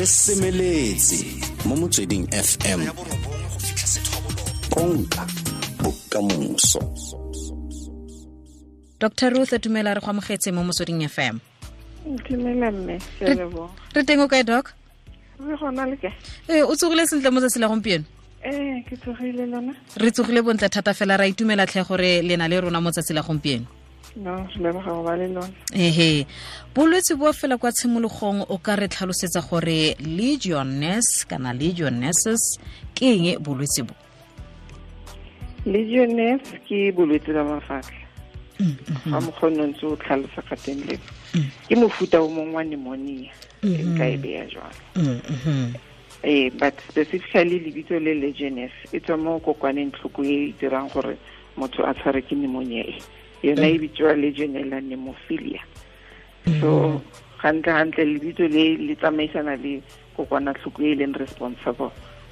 Re semeletse mo Motsweding FM, konka bokamoso. Dr Ruth, dumela, re go amogetse mo Motsweding FM. Dumela mme, ke a leboga. Re teng, o kae, doc? Re gona, le kae? Ee, o tsogile sentle mo tsatsi la gompieno? Ee, ke tsogile, lona? Re tsogile bontle thata fela, ra itumela tlhe gore le na le rona mo tsatsi la gompieno. No, re leboga go ba le lona. Ehe, bolwetse bo fela kwa tshimologong, o ka re tlhalosetsa gore legionnaires kana legionnaires ke eng, bolwetse bo? Legionnaires ke bolwetse ba mafatlha ga mokgone ntse o tlhalosa ka teng le ke mofuta o mongwe wa pneumonia, e nka e beya jwalo. Ee, but specifically lebitso le legionnaires e tswa mo kokwaneng tlhoko e e dirang gore motho a tshware ke pneumonia e, yona e bitswa Legionella pneumophila. So gantle gantle lebitso le le tsamaisana le kokwanatlhoko e leng responsible,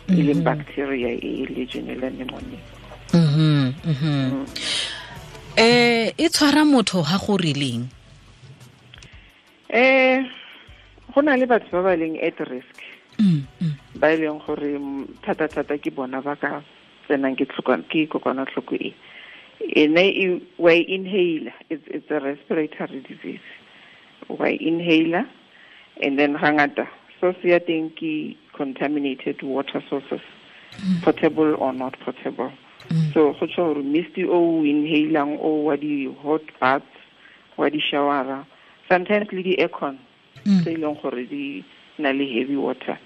e leng bacteria e Legionella pneumonia. E tshwara motho ha go rileng? Go na le batho ba ba leng at risk, ba e leng gore thata-thata ke bona ba ka tsenang ke kokwanatlhoko e. Ene e wa e inhale, it's a respiratory disease, wa e inhaler, and then hangata source ya teng ke contaminated water sources, potable or not potable. So go tsho gore mist o o inhalang o wa di hot baths, wa di showera, sometimes le di aircon tse e leng gore di na le heavy water.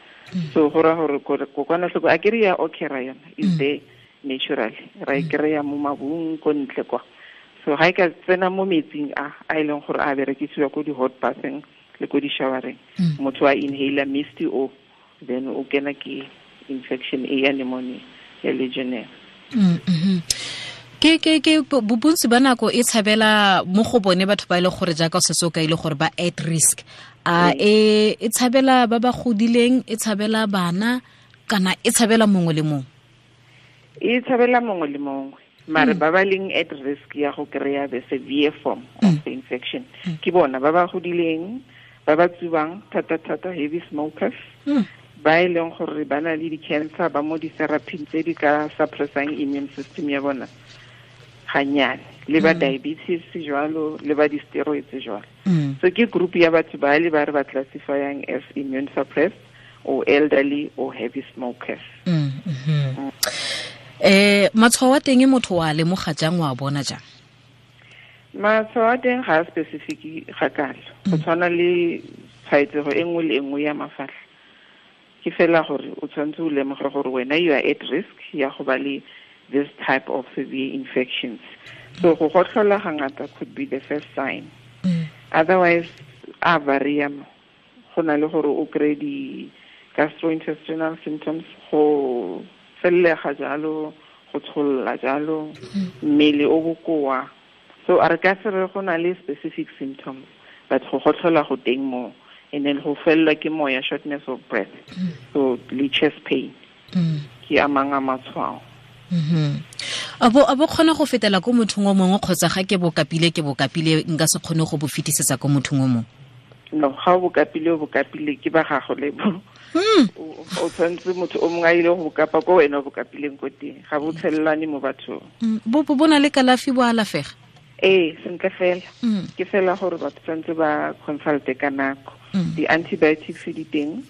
So go ra gore kokwanatlhoko a kere ya occura, yona is there naturally, ra e kry-a mo mabung ko ntle kwa. So ga e ka tsena mo metsing a a e leng gore a berekisiwa ko di-hot batheng le ko di-showereng, motho a inhaler mist o, then o kena ke infection e ya pneumonia ya legionnaire. Ke bontsi ba nako e tshabela mo go bone batho ba e le gore, jaaka o setse o ka ile gore ba at risk, a e tshabela ba ba godileng, e tshabela bana, kana e tshabela mongwe le mongwe? E tshabela mongwe le mongwe, mare ba ba leng at risk ya go kry-a the severe form of the infection ke bona ba ba godileng, ba ba tsubang thata-thata, heavy smokers, ba e leng gore ba na le di-cancer, ba mo di-therapy tse di ka suppressang immune system ya bona ganyane, le ba diabetes jwalo, le ba di-steroids jwalo. So ke group ya batho ba le ba re ba classifyang as immune suppressed or elderly or heavy smokers. Matshwao a teng, motho wa lemoga jang, wa bona jang? Matshwao a teng ga a specific ga kalo, go tshwana le tshwaetsego e nngwe le e nngwe ya mafatlha. Ke fela gore o tshwanetse o lemoge gore wena you are at risk ya go ba le this type of severe infections. So go gotlhola ga ngata could be the first sign. Otherwise a varia mo go na le gore o kry di-gastrointestinal symptoms, go fellega jalo, go tsholola jalo, mmele o bokoa. So a re ka se re go na le specific symptoms, but go gotlhola go teng mo, and then go fellwa ke moya, shortness of breath, so le chest pain ke a mang a matshwao. A bo kgona go fetela ko mothong o mongwe, kgotsa ga ke bo kapile, ke bo kapile, nka se kgone go bo fetisetsa ko mothong o mongwe? No, ga o bo kapile, o bo kapile, ke ba gago le bo. O tshwanetse motho o mongwe a ile go bo kapa ko wena o bo kapileng ko teng, ga bo tshelelane mo bathong. Bo na le kalafi, bo alafega? Ee, sentle fela. Ke fela gore batho tshwanetse ba consulte ka nako. Di-antibiotics di teng,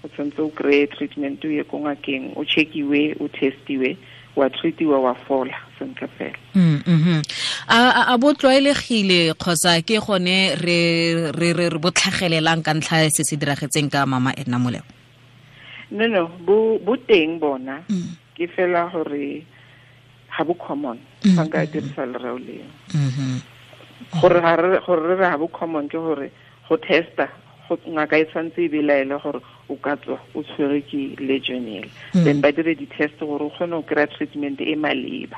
o tshwanetse o kry-e treatment, o ye ko ngakeng, o checkiwe, o testiwe, wa treatiwa, wa fola sentle fela. A bo tlwaelegile, kgotsa ke gone re bo tlhagelelang ka ntlha ya se se diragetseng ka mama Edna Moleo? No, bo teng bona. Ke fela gore ga bo common, fa nka dirisa lereo leo. Gore ga re gore re re ga bo common ke gore go testa go ngaka e tshwanetse e belaele gore o ka tswa o tshwere ke legionella, then ba dire di-test gore o kgone go kry-a treatment e maleba.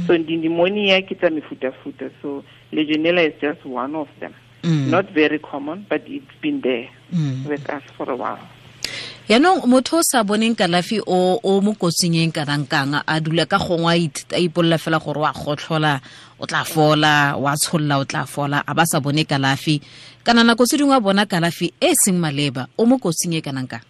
So di-pneumonia ke tsa mefutafuta, so legionella is just one of them. Not very common, but it's been there with us for a while. Yaanong motho o sa boneng kalafi o mo kotsing e kanang kang, a dula ka gongwe a ipolola fela gore wa gotlhola o tla fola, wa tsholola o tla fola, a ba sa bone kalafi, kana nako tse dingwe a bona kalafi e seng maleba, o mo kotsing e kanang kang?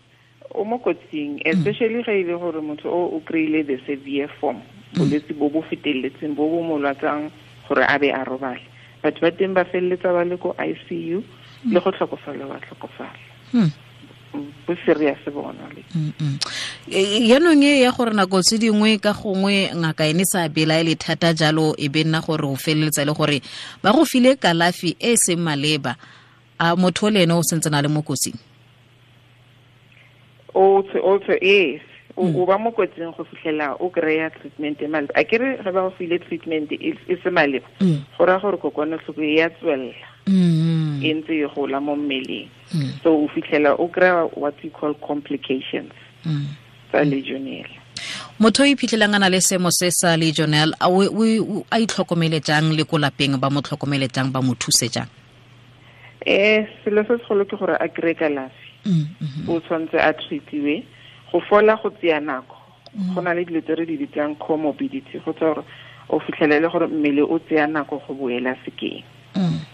mo kotsing, especially ga ile gore motho o kry-ile the severe form, bolwetse bo bo feteletseng bo bo mo lwatsang gore a be a robale. Batho ba teng ba feleletsa ba le ko ICU le go tlhokofala ba tlhokofala. Bo serious bona le. Yaanong e ya gore nako tse dingwe ka gongwe ngaka ene sa belaele thata jalo e be nna gore o feleletsa le gore ba go file kalafi e seng maleba, a motho le ene o sentse na le mo kotsing? Also yes, o ba mo kotsing go fitlhela o kry-a treatment e maleba. A kere ge ba go file treatment e se maleba, go raya gore kokwanatlhoko e ya tswelela e ntse e gola mo mmeleng. So o fitlhela o kry-a what we call complications tsa legionella. Motho o iphitlhelang a na le seemo se sa legionella, a itlhokomele jang le ko lapeng ba mo tlhokomele jang, ba mo thuse jang? Selo se segolo ke gore a kry-e kalafi. O tshwanetse a treatiwe. Go fola go tseya nako. Go na le dilo tse re di bitsang comorbidity, go tsa gore o fitlhelele gore mmele o tseya nako go boela sekeng.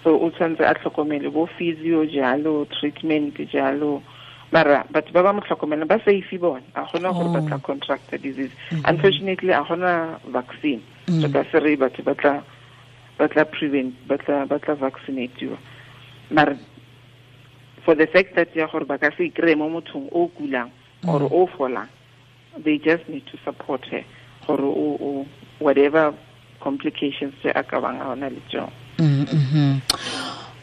So o tshwanetse a tlhokomele bo physio jalo, treatment jalo. Mara batho ba ba mo tlhokomelang ba safe bona, a gona gore ba tla contract the disease. Unfortunately a gona vaccine. So ka se re batho ba tla prevent, ba tla vaccinatiwa. Mara for the fact that ya gore ba ka se kry mo mothong o kulang or o folang, they just need to support her gore o whatever complications tse a ka bang a ona le tsone.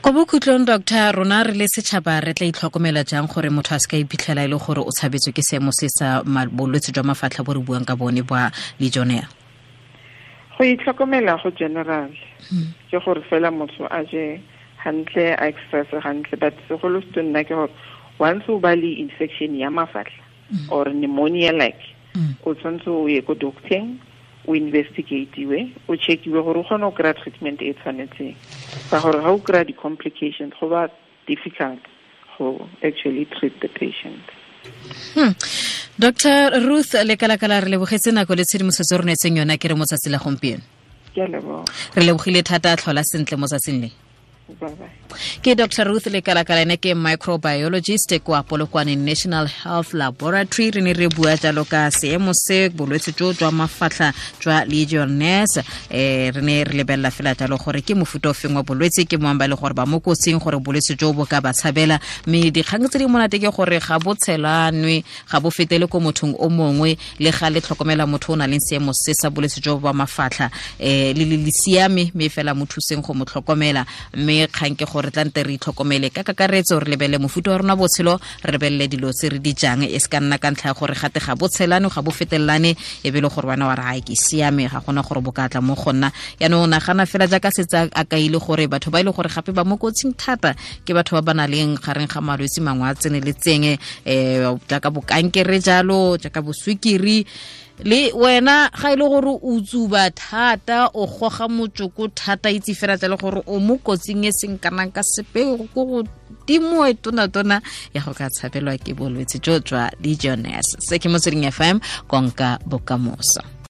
Ko bokhutlong, doctor, rona re le setšhaba re tla itlhokomela jang gore motho a se ka iphitlhela e le gore o tshabetswe ke seemo se sa bolwetse jwa mafatlha bo re buang ka bone ba legionella? Go itlhokomela go general ke gore fela motho a je hantle, a exercise hantle, but segolo se nna ke gore once o ba le infection ya mafatlha or pneumonia like, o tshwanetse o ye ko docteng, o investigatiwe, o checkiwe gore o kgone go kry-a treatment e tshwanetseng. Ka gore ga o kry-a di-complications, go ba difficult go actually treat the patient. Dr. Ruth Lekalakala, re lebogetse nako le tshedimosetso re neetseng yona ke re mo tsatsi la gompieno. Ke a leboga. Re lebogile thata, tlhola sentle mo tsatsing le. Bye-bye. Ke Dr. Ruth Lekalakala, ene ke microbiologist kwa Polokwane National Health Laboratory. Re ne re bua jalo ka seemo se bolwetse jo jwa mafatlha jwa Legionnaires. Re ne re lebelela fela jalo gore ke mofuta o feng wa bolwetse, ke moang ba le gore ba mo kotsing gore bolwetse jo bo ka ba tshabela. Mme dikgang tse di monate ke gore ga bo tshelanwe, ga bo fetele ko mothong o mongwe, le ga le tlhokomela motho o na leng seemo se sa bolwetse jo ba mafatlha, le le siame, mme fela mo thuseng go mo tlhokomela. Mme kgang ke gore tla nte re itlhokomele ka kakaretso, re lebelele mofuta wa rona botshelo, re lebelele dilo tse re di jang, e se ka nna ka ntlha ya gore gate ga bo tshelane, ga bo fetelelane, e be le gore wena wa re ai ke siame, ga gona gore bo ka tla mo go nna. Yaanong nagana fela jaaka setse a kaile gore batho ba e le gore gape ba mo kotsing thata ke batho ba ba nang leng gareng ga malwetse mangwe a tseneletseng, jaaka bokankere jalo, jaaka boswikiri. Le wena ga ile gore o tsuba thata, o goga motsoko thata, itse fela tla le gore o mo kotsing e seng kana ka sepe, go go timo e tona ya go ka tshabelwa ke bolwetse jo jwa Legionnaires. Se ke Motsweding FM, konka bokamoso.